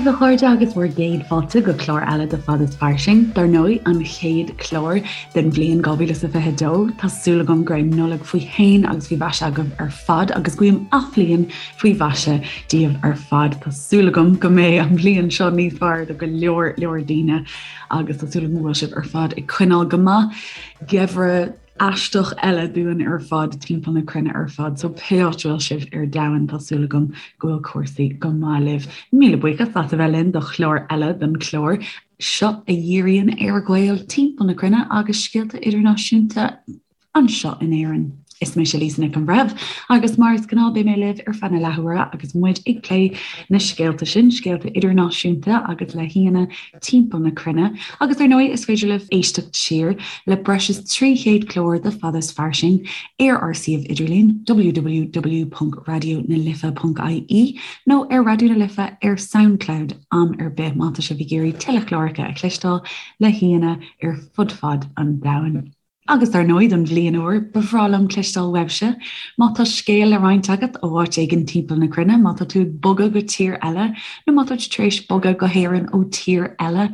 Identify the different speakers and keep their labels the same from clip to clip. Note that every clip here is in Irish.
Speaker 1: daoibh a chairde agus bhur gcéad fáilte go clár eile de Fad is Fairsing, dar ndóigh an chéad chlár den bhliain 2022. Tá súil agam go raibh Nollaig faoi shéan agus faoi mhaise agaibh ar fad agus guím athbhliain faoi mhaise daoibh ar fad. Tá súil agam go mbeidh an bhliain seo níos fearr do go leor leor daoine agus tá súil agam go bhfuil sibh ar fad ag coinneáil go maith. Geimhreadh aisteach eile dúinn ar fad timpeall na cruinne ar fad, so pé áit a bhfuil sibh ar domhan tá súil agam go bhfuil cúrsaí go maith libh. Míle buíochas as a bheith linn do chlár eile den chlár seo a dhíríonn ar Ghaeil timpeall na cruinne agus scéalta idirnáisiúnta anseo in Éirinn. Is mise Lisa Nic an Bhreithimh agus mar is gnáth beidh mé libh ar feadh na leathuaire agus muid ag plé na scéalta sin, scéalta idirnáisiúnta agus le haíonna timpeall na cruinne agus ar ndóigh is féidir libh éisteacht siar le breis is 300 clár de Fad is Fairsing ar ár suíomh idirlín www.raidionalife.ie nó ar Raidió na Life ar Soundcloud am ar bith má tá sibh ag iarraidh tuilleadh cláracha a chloisteáil le haíonna ar fud fad an domhain. Agus dar ndóigh, don bhliain úr, ba bhreá liom cloisteáil uaibhse. Má tá scéal le roinnt agat ó áit éigin timpeall na cruinne, má tá tú ag bogadh go tír eile, nó má tá tú tar éis bogadh go hÉirinn ó tír eile,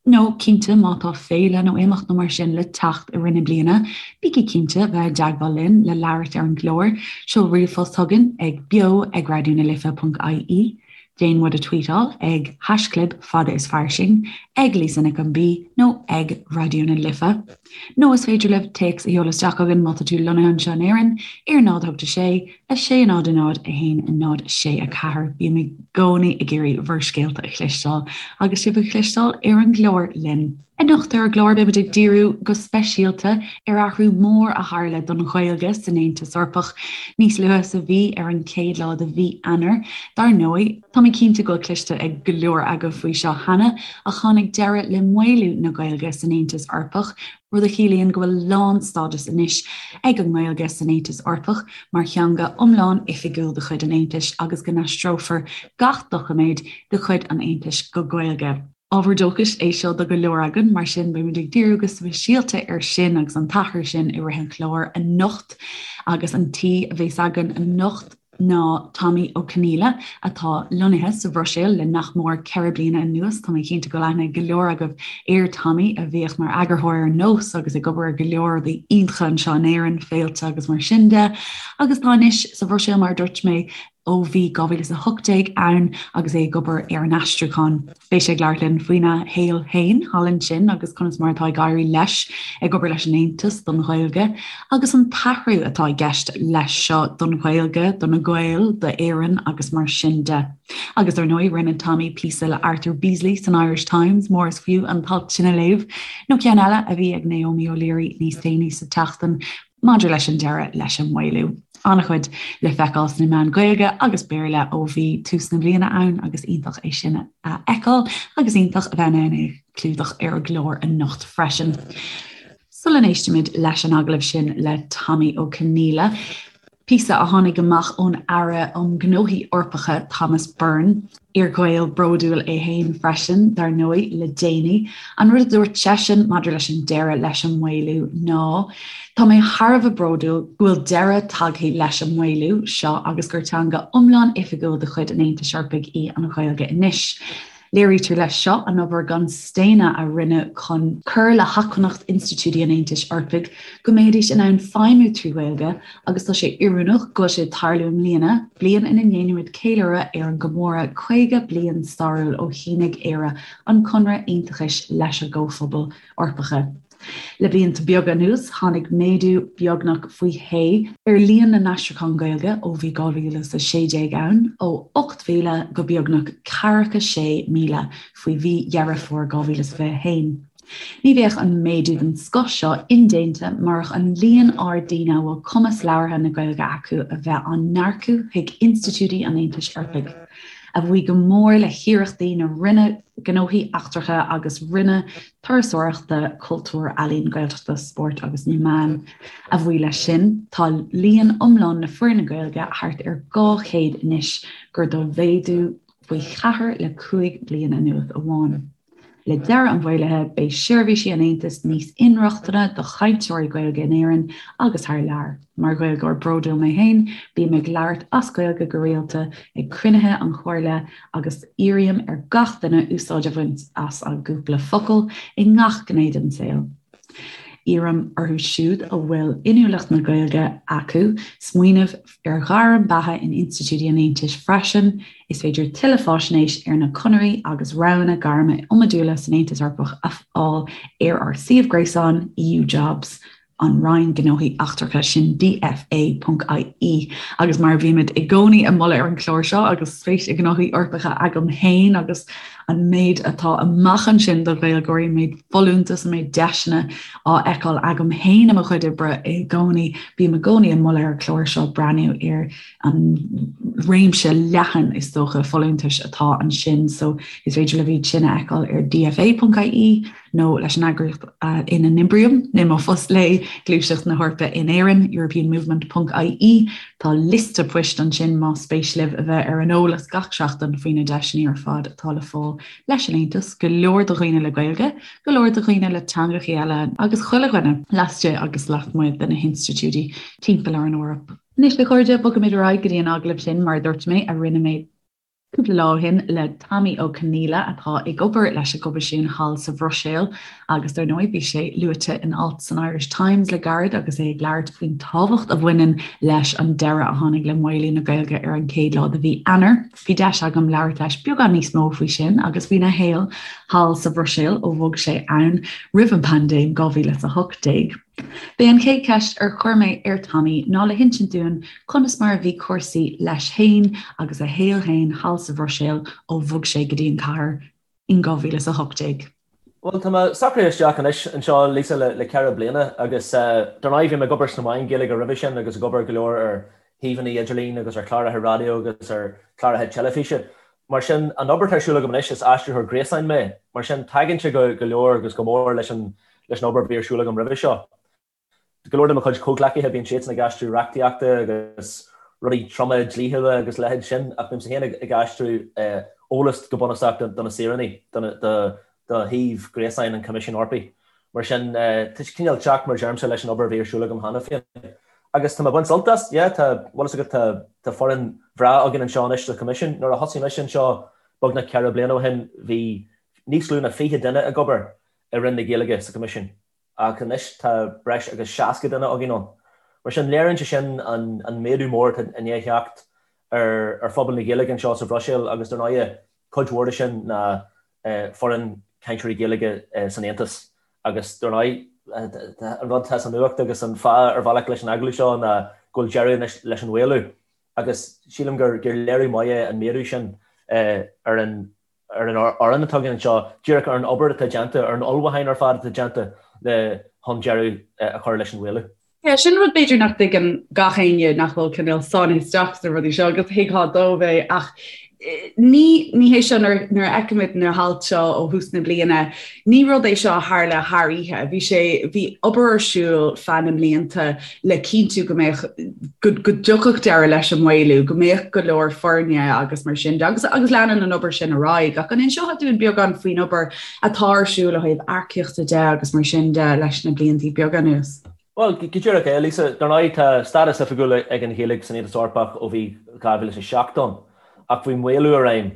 Speaker 1: nó cinnte má tá féile nó imeacht nó mar sin le teacht i rith na bliana, bígí cinnte bheith i dteagmháil linn le labhairt ar an gclár. Seol ríomhphost chugainn ag beo ag raidionalife.ie. Déan muid a tweetáil ag haischlib fada is fairsing, ag Lisa Nic an B nó ag Raidió na Life. Nó is féidir libh téacs a sheoladh isteach chugainn má tá tú lonnaithe anseo in Éirinn ar 0 8 6 6 0 0 1 0 6 4. Bím i gcónaí ag iarraidh bhur scéalta a chloisteáil agus sibh a chloisteáil ar an gclár linn. Anocht ar an gclár beimid ag díriú go speisialta ar athrú mór a tharla don Ghaeilge san Aontas Eorpach níos luaithe sa mhí, ar an chéad lá de mhí Eanáir. Dar ndóigh, tá mé cinnte go bhfuil cloiste ag go leor agaibh faoi seo cheana, ach tháinig deireadh le maolú na Gaeilge san Aontas Eorpach, rud a chiallaíonn go bhfuil lánstádas anois ag an nGaeilge san Aontas Eorpach mar theanga iomlán oifigiúil de chuid an Aontais agus go n-aistreofar gach doiciméad de chuid an Aontais go Gaeilge. Ábhar dóchais é seo do go leor againn, mar sin beimid ag díriú go speisialta air sin agus an t-athrú sin i rith an chláir anocht. Agus an t-aoi a bheas againn anocht ná Tommy Ó Conghaile atá lonnaithe sa Bhruiséil le nach mór 4 bliana anuas. Tá mé cinnte go bhfuil aithne ag go leor agaibh ar Tommy a bhíodh mar eagarthóir ar Nós agus ag obair ar go leor rudaí iontacha anseo in Éirinn, féilte agus mar sin de. Agus tá anois sa Bhruiséil mar a dúirt mé ó bhí 2018 ann agus é ag obair ar an aistriúchán. Beidh sé ag labhairt linn faoina shaol féin thall ansin agus conas mar atá ag éirí leis ag obair leis an Aontas don Ghaeilge agus an t-athrú atá i gceist leis seo don Ghaeilge, do na Gaeil, d'Éirinn agus mar sin de. Agus ar ndóigh, rinne Tommy píosa le Arthur Beesley san Irish Times, mór is fiú an t-alt sin a léamh, nó ceann eile a bhí ag Naomi O'Leary níos déanaí sa tseachtain maidir leis an deireadh leis an maolú. An-chuid le feiceáil sna meáin Ghaeilge agus Béarla ó bhí tús na bliana ann agus iontach é sin a fheiceáil agus iontach a bheith in ann é a chlúdach ar an gclár anocht freisin. Sula n-éistimid leis an agallamh sin le Tommy Ó Conghaile, píosa a tháinig amach ón Aire um Ghnóthaí Eorpacha Thomas Byrne, Iar-Ghael bródúil é féin freisin, dar ndóigh, le déanaí. An rud a dúirt seisean maidir leis an deireadh leis an maolú ná, Tá mé thar a bheith bródúil go bhfuil deireadh tagtha leis an maolú seo agus gur teanga iomlán oifigiúil de chuid an Aontais Eorpaigh í an Ghaeilge anois. Léirítear leis seo an obair gan staonadh a rinneadh chun cur le hacmhainneacht institiúidí an Aontais Eorpaigh go mbeidís in ann feidhmiú trí Ghaeilge agus tá sé oiriúnach go bhfuil sé ag tarlú i mbliana, bliain ina ndéanaimid ceiliúradh ar an gcomóradh 50 bliain stairiúil ó shínigh Éire an Conradh Aontachais leis an gComhphobal Eorpacha. Le blianta beaga anuas, tháinig méadú beagnach faoi shé ar líon na n-aistriúchán Gaeilge ó bhí 2016 ann, ó 8,000 go beagnach 46,000 faoi mhí Dheireadh Fómhair 2021. Ní bheadh an méadú den scoth seo indéanta murach an líon ard daoine a bhfuil cumas labhartha na Gaeilge acu a bheith á n-earcú chuig institiúidí an Aontais Eorpaigh, a bhuí go mór le hiarrachtaí na Roinne Gnóthaí Eachtracha agus Roinne Turasóireachta, Cultúir, Ealaíon, Gaeltachta, Spóirt agus na Meán. A bhuí leis sin, tá líon iomlán na foirne Gaeilge thart ar 200 anois, gar do mhéadú faoi cheathair le 5 bliana anuas amháin. Le deireadh an mhaolaithe, beidh seirbhísí an Aontais níos inrochtana do chainteoirí Gaeilge in Éirinn agus thar lear. Mar Ghaeilgeoir bródúil mé féin, bím ag labhairt as Gaeilge go rialta ag cruinnithe an Chomhairle agus iarraim ar gach duine úsáid a bhaint as an gcúpla focal i ngach gné den saol. Iarraim orthu siúd a bhfuil inniúlacht na Gaeilge acu smaoineamh ar ghairm beatha in institiúidí an Aontais freisin. Is féidir tuilleadh faisnéis ar na conairí agus roghanna gairme iomadúla san Aontas Eorpach a fháil ar ár suíomh gréasáin EU Jobs. an Roinn Gnóthaí Eachtracha, sin DFA.ie. Agus mar a bhímid i gcónaí ag moladh ar an chlár seo, agus spéis i ngnóthaí Eorpacha agam féin agus an méid atá amach ansin do Ghaeilgeoirí, an méid folúntas, an méid deiseanna á fheiceáil agam féin i mo chuid oibre i gcónaí, bím i gcónaí ag moladh ar an chlár seo breathnú ar an réimse leathan, is dócha, folúntais atá ansin. So is féidir libh iad sin a fheiceáil ar DFA.ie. nó leis an eagraíocht ina n-oibrím i mo phost léi, Gluaiseacht na hEorpa in Éirinn, europeanmovement ponc ie. Tá liosta poist ansin más spéis libh a bheith ar an eolas gach seachtain faoi na deiseanna ar fad atá le fáil leis an Aontas, go leor do dhaoine le Gaeilge, go leor do dhaoine le teangachaí eile agus chuile dhuine laistigh agus lasmuigh de na hinstitiúidí timpeall ar an Eoraip. Anois, a chairde, bogaimid ar aghaidh go dtí an agallamh sin, mar a dúirt mé, a rinne mé Cúpla lá ó shin le Tommy Ó Conghaile atá ag obair leis an gCoimisiún thall sa Bhruiséil agus dar ndóigh bhí sé luaite in alt san Irish Times le gairid agus é ag labhairt faoin tábhacht a bhaineann leis an deireadh a tháinig le maolú na Gaeilge ar an chéad lá de mhí Eanáir. Bhí deis agam labhairt leis beagán níos mó faoi sin agus faoina shaol thall sa Bhruiséil ó bhog sé ann roimh an bpaindéim 2018. B'é an chéad cheist ar chuir mé ar Tommy ná le hinsint dúinn conas mar a bhí cúrsaí leis féin agus a shaol féin thall sa Bhruiséil ó bhog sé go dtí an chathair in 2018.
Speaker 2: Bhuel, tá mé socraithe isteach anois anseo, Lisa, le ceithre bliana agus dar ndóigh bhí mé ag obair sna meáin Ghaeilge roimhe sin agus ag obair go leor ar shuíomhanna idirlín agus ar chláracha raidió agus ar chláracha teilifíse. Mar sin, an obair atá ar siúl agam anois, is aistritheoir gréasáin mé, mar sin tagann sé go leor agus go mór leis an leis an obair a bhí ar siúl agam roimhe seo. Go leor de mo chuid comhghleacaithe, bíonn siadsan ag aistriú reachtaíochta agus rudaí troma dlíthiúla agus leithéid sin, ach bímse féin ag aistriú eolas go bunúsach do na saoránaigh, do do shuíomh gréasáin an Choimisiúin Eorpaigh. Mar sin, tá sé cineál teacht, mar deirimse, leis an obair a bhí ar siúl agam cheana féin. Agus tá mé ag baint sult as, yeah, tá, bhfuil fhios agat, tá, tá foireann bhreá againn anseo anois sa Choimisiún. Nuair a thosaigh mise anseo beagnach ceithre bliana ó shin, bhí níos lú ná 20 duine ag obair i Roinn na Gaeilge sa Choimisiún. Ach anois tá breis agus 60 duine againn ann. Mar sin, léiríonn sé sin an méadú mór atá i ndiaidh theacht ar phobal na Gaeilge anseo sa Bhruiséil agus dar ndóigh, cuid mhór de sin ná foireann cainteoirí Gaeilge san Aontas agus dar ndóigh, an rud atá sa nuacht agus an fáth ar bhealach leis an agallamh seo ná go bhfuil deireadh anois leis an mhaolú agus sílim gur léiriú maith é an méadú sin ar an ar an fhoireann atá againn anseo, díreach ar an obair atá déanta, ar an ullmhúchán ar fad atá déanta le chun deireadh a chur leis an mhaolú.
Speaker 1: Yeah, sin rud b'fhéidir nach dtuigeann gach éinne nach bhfuil cineál sáinnithe isteach sna rudaí seo agus thuigfeá dóibh é ach ní ní hé seo nuair nuair a fheicimid na hailt seo ó thús na bliana, ní rud é seo a tharla thar oíche. Bhí sé bhí obair ar siúl feadh na mblianta le cinntiú go mbeadh go go dtiocfadh deireadh leis an maolú, go mbeadh go leor foirne agus mar sin de agus agus leanann an obair sin ar aghaidh. Ach an inseofá dúinn beagán faoin obair atá ar siúl ó thaobh earcaíochta de agus mar sin de leis na blianta beaga anuas?
Speaker 2: Bhuel, go díreach é, Lisa. Dar ndóigh, tá stádas oifigiúil ag an Ghaeilge san Aontas Eorpach ó bhí 2007 ann, ach bhí maolú i réim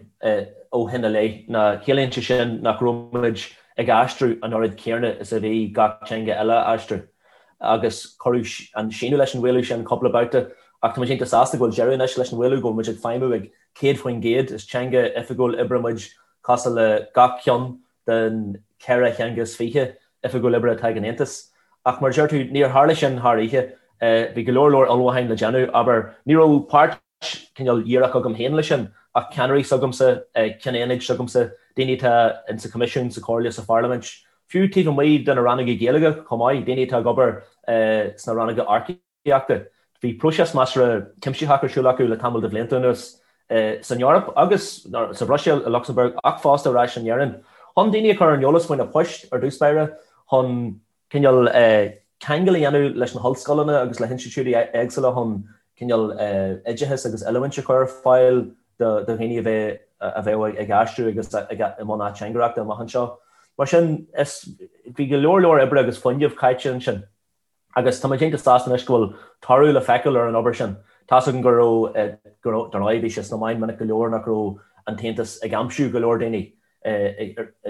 Speaker 2: ó shin i leith. Ná ciallaíonn sé sin nach raibh muid ag aistriú an oiread céanna is a bhí gach teanga eile á aistriú. Agus cuireadh an síneadh leis an mhaolú sin cúpla babhta, ach tá muid iontach sásta go bhfuil deireadh anois leis an mhaolú, go bhfuil muid ag feidhmiú ag 100%, is teanga oifigiúil oibre muid cosúil le gach ceann den cheithre theanga is fiche oifigiúil oibre atá ag an Aontas. Ach mar a deir tú, níor tharla sin thar oíche. Bhí go leor leor ullmhúcháin le déanamh. Abair, ní raibh páirt cineál dhíreach agam féin leis sin, ach ceannairí s'agamsa, cinn aonaid s'agamsa, daoine atá in sa Choimisiún, sa Chomhairle, sa Pharlaimint, fiú taobh amuigh de na rannóga Gaeilge chomh maith, daoine atá ag obair sna rannóga earcaíochta. Bhí próiseas measartha cuimsitheach ar siúl acu le tamall de bhlianta anuas san Eoraip agus sa Bhruiséil, i Lucsamburg ach fosta ar ais in Éirinn, chun daoine a chur ar an eolas faoi na poist ar dtús báire, chun cineál ceangal a dhéanamh leis na hollscoileanna agus le hinstitiúidí éagsúla chun cineál oideachas agus oiliúint a chur ar fáil do dhaoine a bheadh ag aistriú agus i mbun ateangaireachta amach anseo. Mar sin, is, bhí go leor leor oibre agus fuinnimh caite ansin. Agus tá muid iontach sásta anois go bhfuil toradh le feiceáil ar an obair sin. Tá's againn go raibh, go raibh, dar ndóigh bhí sé sna meáin minic go leor nach raibh an tAontas ag aimsiú go leor daoine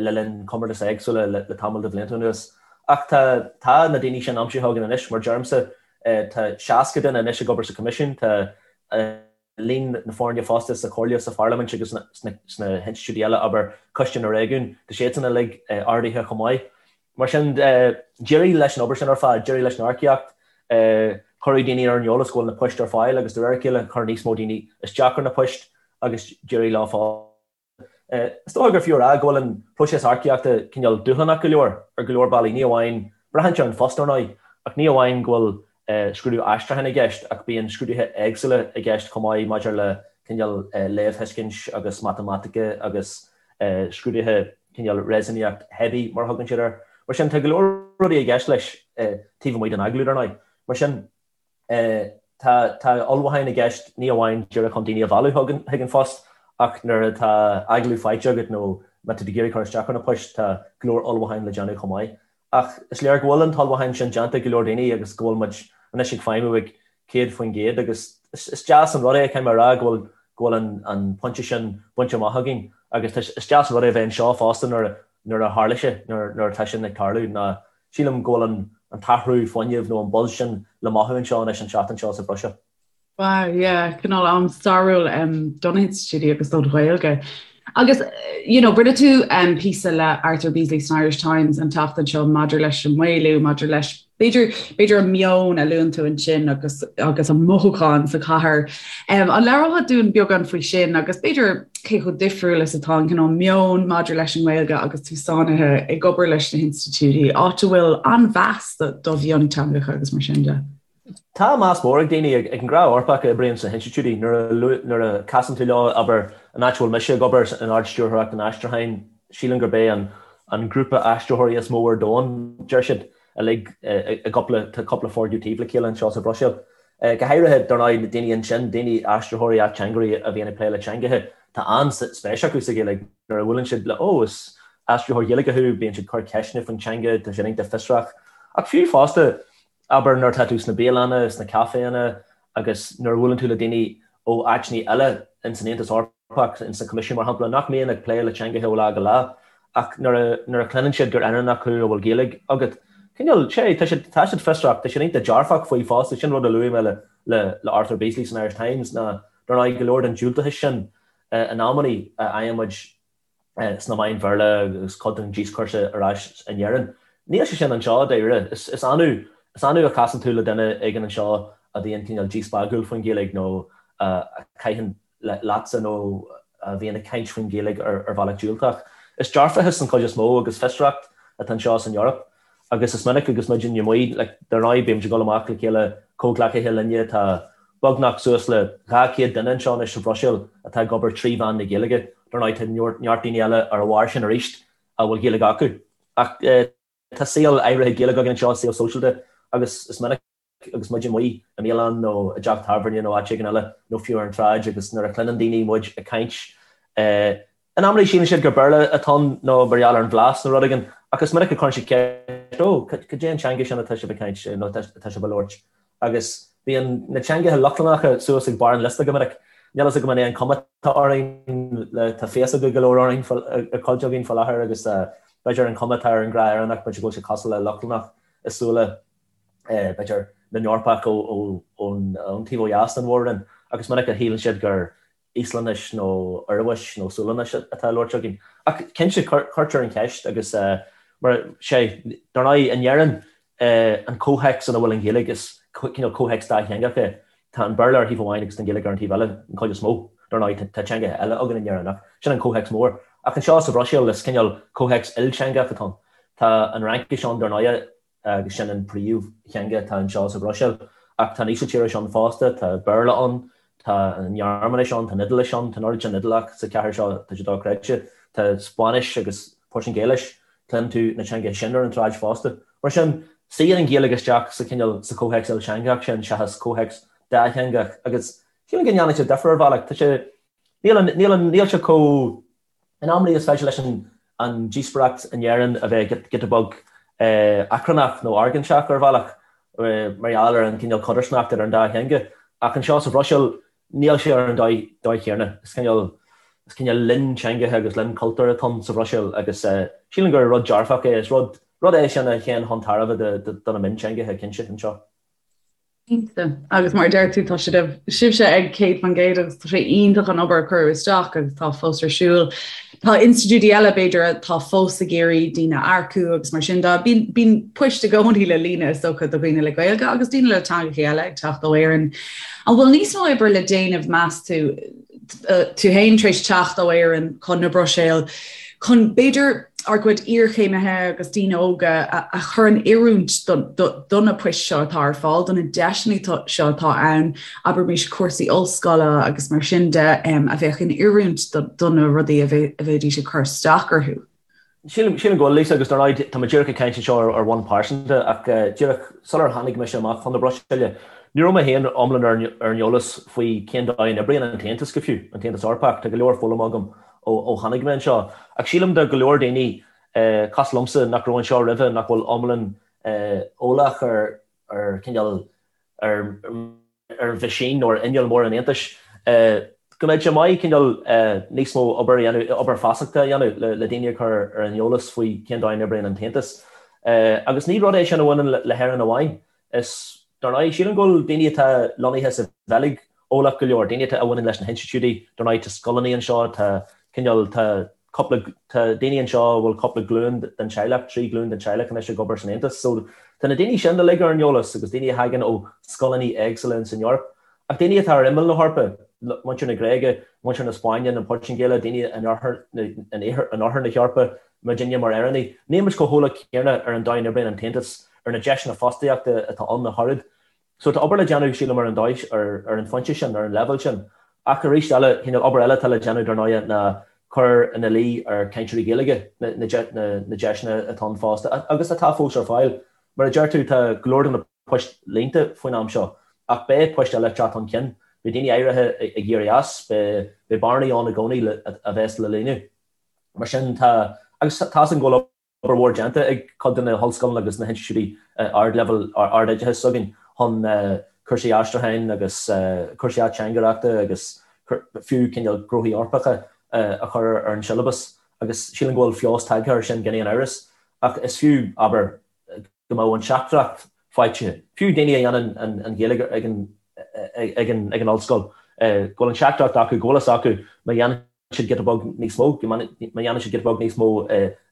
Speaker 2: le linn comórtais éagsúla le tamall de bhlianta anuas. Ach tá, tá na daoine sin aimsithe againn anois, mar deirimse, tá 60 duine anois ag obair sa Choimisiún, tá líon na foirne fosta sa Chomhairle, sa Pharlaimint agus sna hinstitiúidí eile, abair Coiste na Réigiún, tá siadsan uilig ardaithe chomh maith. Mar sin, d'éirigh leis an obair sin ar fad, d'éirigh leis an earcaíocht, cuireadh daoine ar an eolas go bhfuil na poist ar fáil agus de réir a chéile chuir níos mó daoine isteach ar na poist agus d'éirigh leo fosta. Is dócha gur fiú a rá go bhfuil an próiseas earcaíochta cineál dúshlánach go leor ar go leor bealaí, ní amháin, braitheann sé ar an phost ar ndóigh, ach ní amháin go bhfuil scrúdú aistriúcháin i gceist ach bíonn scrúduithe éagsúla i gceist chomh maith maidir le cineál léamhthuiscint agus matamaitice agus scrúduithe cineál réasúnaíocht theibí mar a thugann siad air. Mar sin tá go leor rudaí i gceist leis taobh amuigh den agallamh ar ndóigh. Mar sin. Tá tá ullmhúcháin i gceist ní amháin díreach chun daoine a mhealladh chuig an phost ach nuair atá agallamh faighte agat nó má tá tú ag iarraidh cur isteach ar na poist tá go leor ullmhúcháin le déanamh chomh maith. Ach is léir go bhfuil an t-ullmhúchán sin déanta ag go leor daoine agus go bhfuil muid anois ag feidhmiú ag 100% agus is deas an rud é, caithfidh mé a rá, go bhfuil go bhfuil an an pointe sin bainte amach againn agus tá is deas an rud é a bheith anseo fosta nuair nuair a tharla sé, nuair nuair atá sin ag tarlú ná Sílim go bhfuil an t-athrú fuinnimh nó an buzz sin le mothú anseo anois an tseachtain seo sa Bhruiséil.
Speaker 1: Wow, yeah, cineál am stairiúil do na hinstitiúidí agus don Ghaeilge. Agus, you know, rinne tú píosa le Arthur Beesley san Irish Times an tseachtain seo maidir leis an maolú, maidir leis b'fhéidir b'fhéidir an meon a luann tú ansin agus agus an mothúchán sa chathair. Um, an labhrófá dúinn beagán faoi sin agus b'fhéidir cé chomh difriúil is atá an cineál meon maidir leis an nGaeilge agus tú sáinnithe ag obair leis na hinstitiúidí, áit a bhfuil an-mheas do mhionteangacha agus mar sin de.
Speaker 2: Tá meas mór ag daoine, ag an ngnáth-Eorpach a oibríonn sna hinstitiúidí, nuair a casann tú leo, abair, an áit a bhfuil mise ag obair, in Ard-Stiúrthóireacht an Aistriúcháin, sílim gurb é an grúpa aistritheoirí is mó ar domhan, deir siad, uilig i gcúpla, tá cúpla foirgneamh taobh le chéile anseo sa Bhruiséil. Go háirithe, dar ndóigh, na daoine ansin, daoine, aistritheoirí, ateangairí a bhíonn ag plé le teangacha, tá an-spéis acu sa Ghaeilge. Nuair a bhuaileann siad le, 'Ó, is aistritheoir Gaeilge thú', bíonn siad ag cur ceisteanna faoin teanga, tá siad iontach fiosrach. Ach fiú fosta, abair, nuair atá tú sna bialanna, sna caiféanna agus nuair a bhuaileann tú le daoine ó áiteanna eile ins an Aontas Eorpach, Eorpach, ins an Coimisiún, mar shampla, nach mbíonn ag plé le teangacha ó lá go lá, ach nuair a, nuair a chluineann siad gur Éireannach thú a bhfuil Gaeilge agat, cineál, sé, tá siad, tá siad fiosrach, tá siad iontach dearfach faoi fosta, sin rud a luaigh mé le, le, le Arthur Beesley san Irish Times, ná, dar ndóigh, go leor den diúltachas sin, in amannaí, a fhaigheann muid sna meáin Bhéarla agus cuid den díoscúrsa ar ais in Éirinn. Níl sé sin anseo, dáiríre. Is, is annamh, is annamh a chasann tú le duine éigin anseo a bhíonn cineál díspeagúil faoin Ghaeilge nó a chaitheann leatsa nó a bhíonn ag caint faoin Ghaeilge ar bhealach diúltach. Is dearfachas den chuid is mó agus fiosracht atá anseo san Eoraip agus is minic agus muid amuigh, like, dar ndóigh bímid ag dul amach le chéile, comhghleacaithe linne, tá beagnach suas le 200 duine anseo anois sa Bhruiséil atá ag obair trí mheán na Gaeilge. Dar ndóigh tá neart daoine eile ar a bharr sin arís a bhfuil Gaeilge acu. Ach tá saol áirithe Gaeilge againn anseo, saol sóisialta agus is minic agus muid amuigh i mbialann nó i dteach tábhairne nó áit éigin eile nó fiú ar an tsráid agus nuair a chluineann daoine muid ag caint in amannaí síleann siad gur Béarla atá ann nó mar gheall ar an bhlas nó rud éigin ach is minic a chuireann siad ceist 'Ó, cad é an teanga sin atá sibh ag caint nó atá sibh a labhairt? Agus bíonn na teangacha Lochlannacha suas ag barr an liosta go minic. Níl a fhios agam an é an cuma atá orainn, tá féasóga go leor orainn, ar chuid againn faoi láthair agus b'fhéidir an cuma atá ar an ghnáth-Éireannach, b'fhéidir go bhfuil sé cosúil le Lochlannach i súile b'fhéidir, na nEorpach ón taobh ó dheas den mhór-roinn, agus is minic a shíleann siad gur Íoslainnis nó Ioruais nó Sualainnis atá á labhairt againn. Ach cinnte, cuirtear an cheist agus mar sé, dar ndóigh, in Éirinn, an comhthéacs ina bhfuil an Ghaeilge, is cineál comhthéacs dátheangach é. Tá an Béarla ar thaobh amháin agus an Ghaeilge ar an taobh eile, an chuid is mó. Dar ndóigh, tá teangacha eile againn in Éirinn ach sin an comhthéacs mór. Ach anseo sa Bhruiséil, is cineál comhthéacs ilteangach atá ann. Tá an Fhraincis ann, dar ndóigh, agus sin an príomhtheanga atá anseo sa Bhruiséil. Ach tá an Ísiltíris ann fosta, tá Béarla ann, tá an Ghearmáinis ann, tá an Iodáilis ann, tá an oiread sin Iodálach sa chathair seo, tá sé dochreidte. Tá Spáinnis agus Portaingéilis, cluineann tú na teangacha sin ar an tsráid fosta. Mar sin, suíonn an Ghaeilge isteach sa chineál, sa chomhthéacs ilteangach sin seachas comhthéacs dátheangach agus sílim go ndéanann sé difear ar bhealach. Tá sé, níl an, níl an, níl sé chomh. In amannaí is féidir leis an an díospóireacht in Éirinn a bheith giota beag achrannach nó argóinteach ar bhealach mar gheall ar an gcineál codarsnacht idir an dá theanga. Ach anseo sa Bhruiséil, níl sé ar an dóigh chéanna. Is cineál is cineál linn teangacha agus linn cultúir atá ann sa Bhruiséil agus sílim gur rud dearfach é. Is rud rud é sin a théann chun tairbhe do na mionteangacha, cinnte, anseo.
Speaker 1: Cinnte. Agus mar a deir tú, tá siad, sibhse ag 100% agus tá sé iontach an obair a cuireadh isteach agus tá fós ar siúl. Tá institiúidí eile, b'fhéidir, atá fós ag iarraidh daoine a earcú agus mar sin de. Bíonn, bíonn poist i gcónaí le líonadh is dócha do dhaoine le Gaeilge agus daoine le teangacha eile ag teacht ó Éirinn. An bhfuil níos mó oibre le déanamh, meas tú, tú féin tar éis teacht ó Éirinn chun na Bruiséil, chun b'fhéidir ár gcuid iarchéimithe agus daoine óga a chur in oiriúint do na poist seo atá ar fáil, do na deiseanna seo atá ann, abraimis cúrsaí ollscoile agus mar sin de, a bheadh in oiriúint do na rudaí a bheidís ag cur isteach orthu.
Speaker 2: Sílim go bhfuil, Lisa, agus dar ndóigh tá mé díreach ag caint anseo ar bhonn pearsanta ach díreach sular tháinig mise amach chun na Bruiséile, ní raibh mé féin iomlán ar an eolas faoi cén dóigh a n-oibríonn an tAontas go fiú, an tAontas Eorpach. Tá go leor foghlamtha agam ó tháinig mé anseo. Ach sílim do go leor daoine cosúil liomsa nach raibh anseo roimhe, nach bhfuil iomlán eolach ar ar cineál ar ar mheaisín nó ar inneall mór an Aontais, go mbeadh sé maith cineál níos mó obair a dhéanamh, obair feasachta a dhéanamh le daoine a chur ar an eolas faoi cén dóigh a n-oibríonn an tAontas. Agus ní rud é sin a bhaineann le hÉirinn amháin. Is, dar ndóigh, sílim go bhfuil daoine atá lonnaithe sa Bheilg eolach go leor, daoine atá a bhaineann leis na hinstitiúidí, dar ndóigh tá scoileanna anseo, tá cineál, tá cúpla, tá daoine anseo a bhfuil cúpla glúin den teaghlach, 3 glúin den teaghlach anois ag obair san Aontas. So tá na daoine sin uilig ar an eolas agus daoine a thagann ó scoileanna éagsúla ins an Eoraip. Ach daoine atá ar imeall na hEorpa, muintir na Gréige, muintir na Spáinne, na Portaingéile, daoine in oirthear in oirthear na hEorpa, muidinne mar Éireannaigh, níl muid chomh heolach céanna ar an dóigh a n-oibríonn an tAontas, ar na deiseanna fostaíochta atá ann ach oiread. So tá obair le déanamh, sílim, ar an dóigh, ar an phointe sin, ar an leibhéal sin. Ach arís eile, cineál obair eile atá le déanamh, dar ndóighe, ná cur ina luí ar chainteoirí Gaeilge na deiseanna atá ann fosta, agus atá fós ar fáil. Mar a deir tú, tá go leor de na poist líonta faoin am seo, ach beidh poist eile ag teacht chun cinn. Beidh daoine áirithe ag éirí as, beidh bearnaí ann i gcónaí a bheas le líonadh. Mar sin, tá, agus tá's agam go bhfuil obair mhór déanta ag cuid de na hollscoileanna agus na hinstitiúidí ardleibhéil ardoideachais s'againn chun cúrsaí aistriúcháin agus cúrsaí ateangaireachta agus fiú cineál gnóthaí Eorpacha a chur ar an siollabas agus sílim go bhfuil feabhas tagtha air sin gan aon amhras ach is fiú, abair, go mbeadh an teachtaireacht faighte, fiú daoine a dhéanann an Ghaeilge ag an ag an ollscoil, go bhfuil an teachtaireacht acu, go bhfuil fhios acu má dhéanann siad giota beag níos mó, má dhéanann siad giota beag níos mó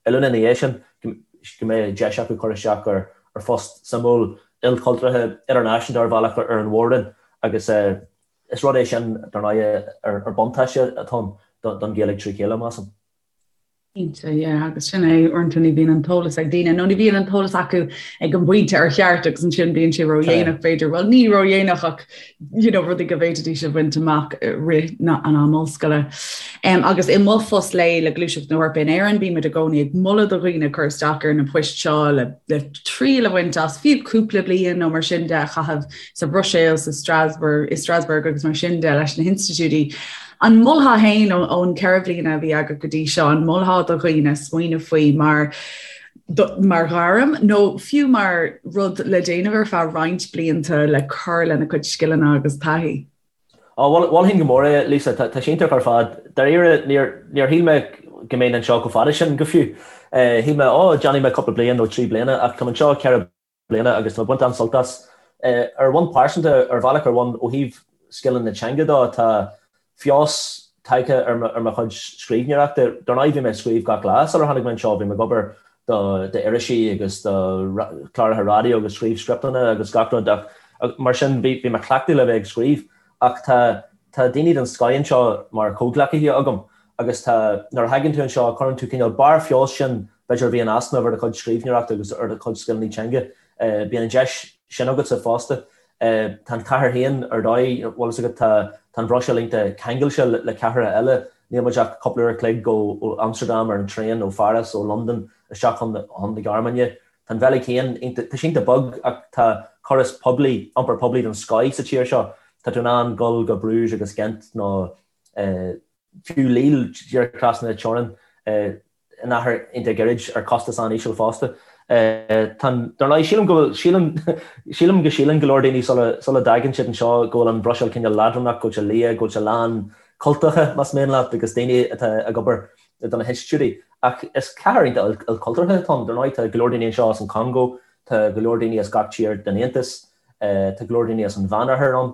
Speaker 2: oiliúna ina dhiaidh sin, go mbeidh deis acu cur isteach ar phost suimiúil, ilchultúrtha, idirnáisiúnta ar bhealach ar an mhór-roinn agus is rud é sin, dar ndóigh, ar buntáiste atá ann don Ghaeilge trí chéile, measaim.
Speaker 1: Cinnte, yeah, agus sin é, uaireanta ní bhíonn an t-eolas ag daoine, nó ní bhíonn an t-eolas acu ag an bpointe ar cheart agus ansin bíonn sé ródhéanach b'fhéidir, bhuel ní ródhéanach ach you know, rudaí go bhféadfaidís a bhaint amach rith na, an am ollscoile. Um, agus i mo phost lae le Gluaiseacht na hEorpa in Éirinn, bímid i gcónaí ag moladh do dhaoine cur isteach ar na poist seo le, le triail a bhaint as fiú cúpla bliain nó mar sin de a chaitheamh sa Bhruiséil, sa Strasbourg, i Strasbourg agus mar sin de leis na hinstitiúidí. An molfá féin ón 4 bhliana a bhí agat go dtí seo, an molfá do dhaoine smaoineamh faoi mar mar ghairm nó fiú mar rud le déanamh ar feadh roinnt blianta le cur lena cuid scileanna agus taithí?
Speaker 2: Á, mholfainn go mór é, Lisa. Tá sé iontach ar fad. Dáiríre, níor níor shíl mé go mbeinn anseo chomh fada sin go fiú. Shíl mé, ó, déanfaidh mé cúpla bliain nó 3 bliana ach táim anseo 4 bliana agus tá mé ag baint an-sult as. Ar bhonn pearsanta, ar bhealach ar bhonn ó thaobh scileanna na teanga dó, tá feabhas tagtha ar mo chuid scríbhneoireachta. Dar ndóigh bhí mé ag scríobh gach lá sular tháinig mé anseo, bhí mé ag obair do irisí agus do chláracha raidió agus scríobh scripteanna agus gach rud ach mar sin bhí mé cleachtaithe le bheith ag scríobh ach tá tá daoine den scoth anseo mar chomhghleacaithe agam agus tá nuair a thagann tú anseo cuireann tú cineál barr feabhais sin b'fhéidir a bhí in easnamh ar do chuid scríbhneoireachta agus ar do chuid scileanna teanga. Bíonn an deis sin agatsa fosta. Tá an chathair féin ar dóigh, bhfuil fhios agat, tá an Bhruiséil iontach ceangailte le cathracha eile. Níl muid ach cúpla uair a chloig ó Amsterdam ar an traein, ó Pháras, ó Londain isteach chun na Gearmáine. Tá an Bheilg féin iontach, tá sí iontach beag ach tá córas poiblí, iompar poiblí den scoith sa tír seo. Tá tú in ann dul go Bruges agus Ghent nó fiú Lille, díreach trasna na teorann. in achar iontach gairid ar chostas an-íseal fosta. Tá an, dar ndóigh, sílim go bhfuil, sílim, sílim go síleann go leor daoine sula, sula dtagann siad anseo go bhfuil an Bhruiséil cineál leadránach, go bhfuil sé liath, go bhfuil sé lán cultacha, más mian leat, agus daoine atá ag obair do na hinstitiúidí. Ach is cathair iontach ilchultúrtha atá ann. Dar ndóigh, tá go leor daoine anseo as an Chongó, tá go leor daoine as gach tír den Aontas, tá go leor daoine as an Mheánoirthear ann.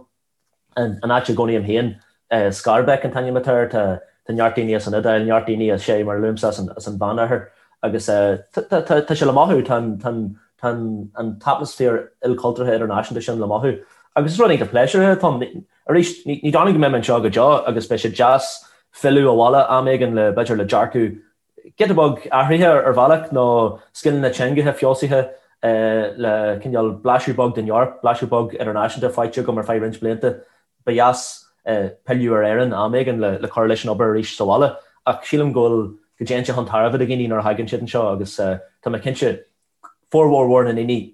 Speaker 2: An áit a gcónaím féin, Schaerbeek an t-ainm atá air, tá neart daoine as an Iodáil, neart daoine as, sé, mar a luaimse, as an Mheánoirthear agus tá sé le mothú, tá an t-atmaisféar ilchultúrtha idirnáisiúnta sin le mothú. Agus is rud iontach pléisiúrtha atá ann. Arís, ní dóigh liom go mbeidh mé anseo go deo agus beidh sé deas filleadh abhaile am éigin le, b'fhéidir, le dearcadh giota beag athraithe ar bhealach nó scileanna teangacha feabhsaithe le cineál blaiseadh beag den Eoraip, blaiseadh beag idirnáisiúnta faighte agam ar feadh roinnt blianta. Ba dheas pilleadh ar Éirinn am éigin le cur leis an obair arís sa bhaile ach sílim go bhfuil, go dtéann sé chun tairbhe do dhaoine nuair a thagann siad anseo agus tá mé cinnte formhór mhór na ndaoine,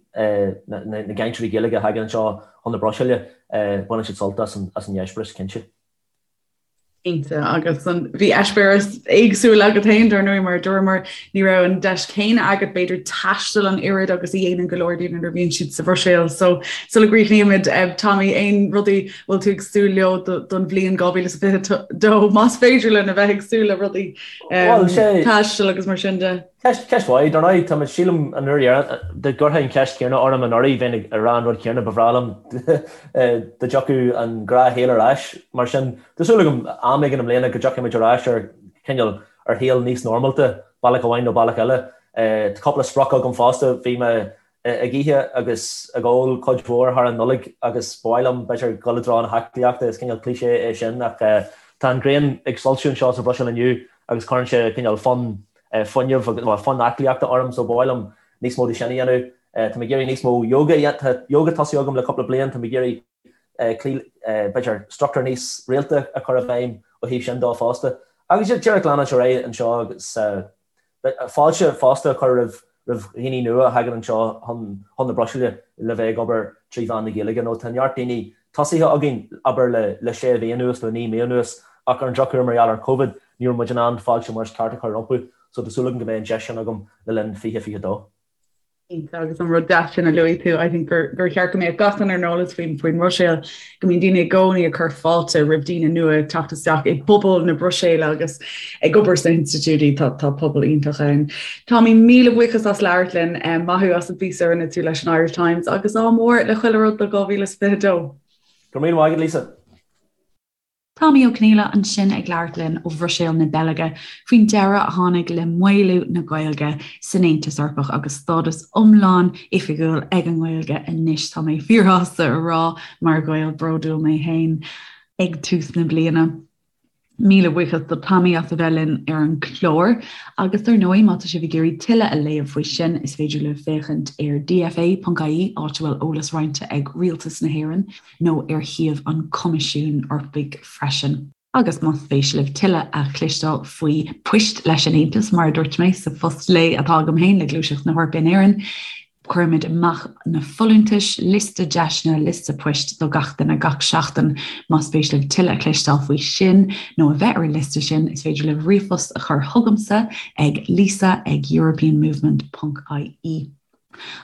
Speaker 2: na gcainteoirí Gaeilge a thagann anseo chun na Bruiséile, baineann siad sult as an eispéireas, cinnte.
Speaker 1: Cinnte, agus bhí eispéireas éagsúil agat féin, dar ndóigh, mar a dúramar, ní raibh an deis chéanna agat b'fhéidir taisteal an oiread agus a dhéanann go leor daoine nuair a bhíonn siad sa Bhruiséil. So sula gcríochnaímid, Tommy, aon rudaí bhfuil tú ag súil leo don bhliain 2022, más féidir linn a bheith ag súil le rudaí taisteal agus mar sin de?
Speaker 2: Ceist, ceist mhaith. Dar ndóigh, tá mé, sílim, an uair dheireanach, dá gcuirfeá an cheist chéanna orm anuraidh, bheinn ag rá an rud céanna, ba bhreá liom dá dtiocfadh an gnáthshaol ar ais. Mar sin, tá súil agam am éigin i mbliana go dtiocfaidh muid ar ais ar chineál, ar shaol níos normálta, bealach amháin nó bealach eile. Tá cúpla sprioc agam fosta. Bhí mé ag ithe agus ag ól cuid mhór thar an Nollaig agus ba mhaith liom, b'fhéidir, dul i dtreo na haclaíochta, is cineál cliché é sin ach tá an ghrian ag soilsiú anseo sa Bhruiséil inniu agus cuireann sé cineál fonn fuinnimh agus, bhuel, fonn aclaíochta orm so ba mhaith liom níos mó de sin a dhéanamh. Tá mé ag iarraidh níos mó yoga a dhéanamh, tá yoga tosaithe agam le cúpla bliain, tá mé ag iarraidh cloí, b'fhéidir, struchtúr níos rialta a chur i bhfeidhm ó thaobh sin dó fosta. Agus díreach leanúint ar aghaidh anseo agus. Fáilte fosta a chur roimh dhaoine nua a thagann anseo chun na Bruiséile le bheith ag obair trí mheán na Gaeilge nó tá neart daoine tosaithe againn, abair le sé mhí anuas nó 9 mí anuas ach ar an drochuair mar gheall ar Covid ní raibh muid in ann fáilte mar is ceart a chur rompu so tá súil agam go mbeidh an deis sin agam le linn 2022.
Speaker 1: Cinnte, agus an rud deas sin a luaigh tú, I think gur gur cheart go mbeadh gach duine ar an eolas faoin faoin mBruiséil, go mbíonn daoine i gcónaí ag cur fáilte roimh daoine nua ag teacht isteach i bpobal na Bruiséile agus ag obair sna hinstitiúidí, tá tá pobal iontach ann. Tommy, míle buíochas as labhairt linn, maith thú as an bpíosa a rinne tú leis an Irish Times agus ádh mór le chuile rud do 2022.
Speaker 2: Go raibh míle maith agat, Lisa.
Speaker 1: Tommy Ó Conghaile ansin ag labhairt linn ó Bhruiséil na Beilge faoin deireadh a tháinig le maolú na Gaeilge san Aontas Eorpach agus stádas iomlán oifigiúil ag an nGaeilge anois. Tá mé fíorshásta a rá mar Ghael bródúil mé féin ag tús na bliana. Míle buíochas do Tommy as a bheith linn ar an gclár agus dar ndóigh má tá sibh ag iarraidh tuilleadh a léamh faoi sin is féidir libh féachaint ar dfa.ie áit a bhfuil eolas roinnte ag Rialtas na hÉireann nó ar shuíomh an Choimisiúin Eorpaigh freisin. Agus más spéis libh tuilleadh a chloisteáil faoi Poist leis an Aontas, mar a dúirt mé sa phost lae atá agam féin le Gluaiseacht na hEorpa in Éirinn, cuirimid amach na folúntais, liosta deiseanna, liosta poist do gach duine gach seachtain. Más spéis libh tuilleadh a chloisteáil faoi sin nó a bheith ar an liosta sin, is féidir libh ríomhphost a chur chugamsa ag lisa ag europeanmovement ponc ie.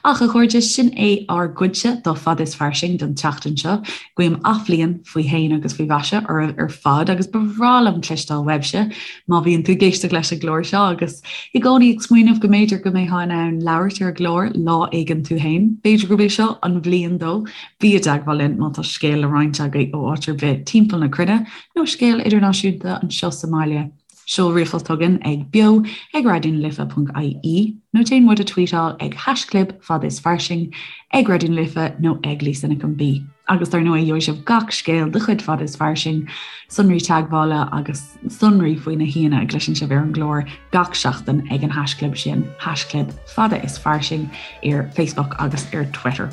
Speaker 1: Ach, a chairde, sin é ár gcuidse de Fada is Fairsing don tseachtain seo. Guím athbhliain faoi shéan agus faoi mhaise oraibh ar fad agus ba bhreá liom cloisteáil uaibhse má bhíonn tú ag éisteacht leis an gclár seo agus i gcónaí ag smaoineamh go mb'fhéidir go mbeifeá in ann labhairt ar an gclár lá éigin tú féin. B'fhéidir gurb é seo an bhliain dó. Bí i dteagmháil linn má tá scéal le roinnt agaibh ó áit ar bith timpeall na cruinne nó scéal idirnáisiúnta anseo sa mbaile. Seol ríomhphost chugainn ag beo ag raidionalife.ie nó déan muid a tweetáil ag haischlib fada is fairsing, ag Raidió na Life nó ag Lisa Nic an B. Agus dar ndóigh gheobhaidh sibh gach scéal de chuid Fada is Fairsing, sonraí teagmhála agus sonraí faoi na haíonna a gcloiseann sibh ar an gclár gach seachtain ag an haischlib sin, haischlib fada is fairsing ar Facebook agus ar Twitter.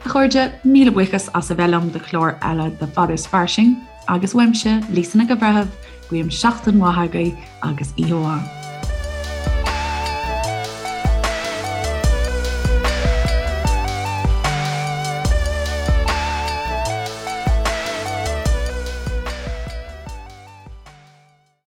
Speaker 1: A chairde, míle buíochas as a bheith liom do chlár eile de Fada is Fairsing. Agus uaimse, Lisa Nic an Bhreithimh, guím seachtain mhaith agaibh agus oíche mhaith.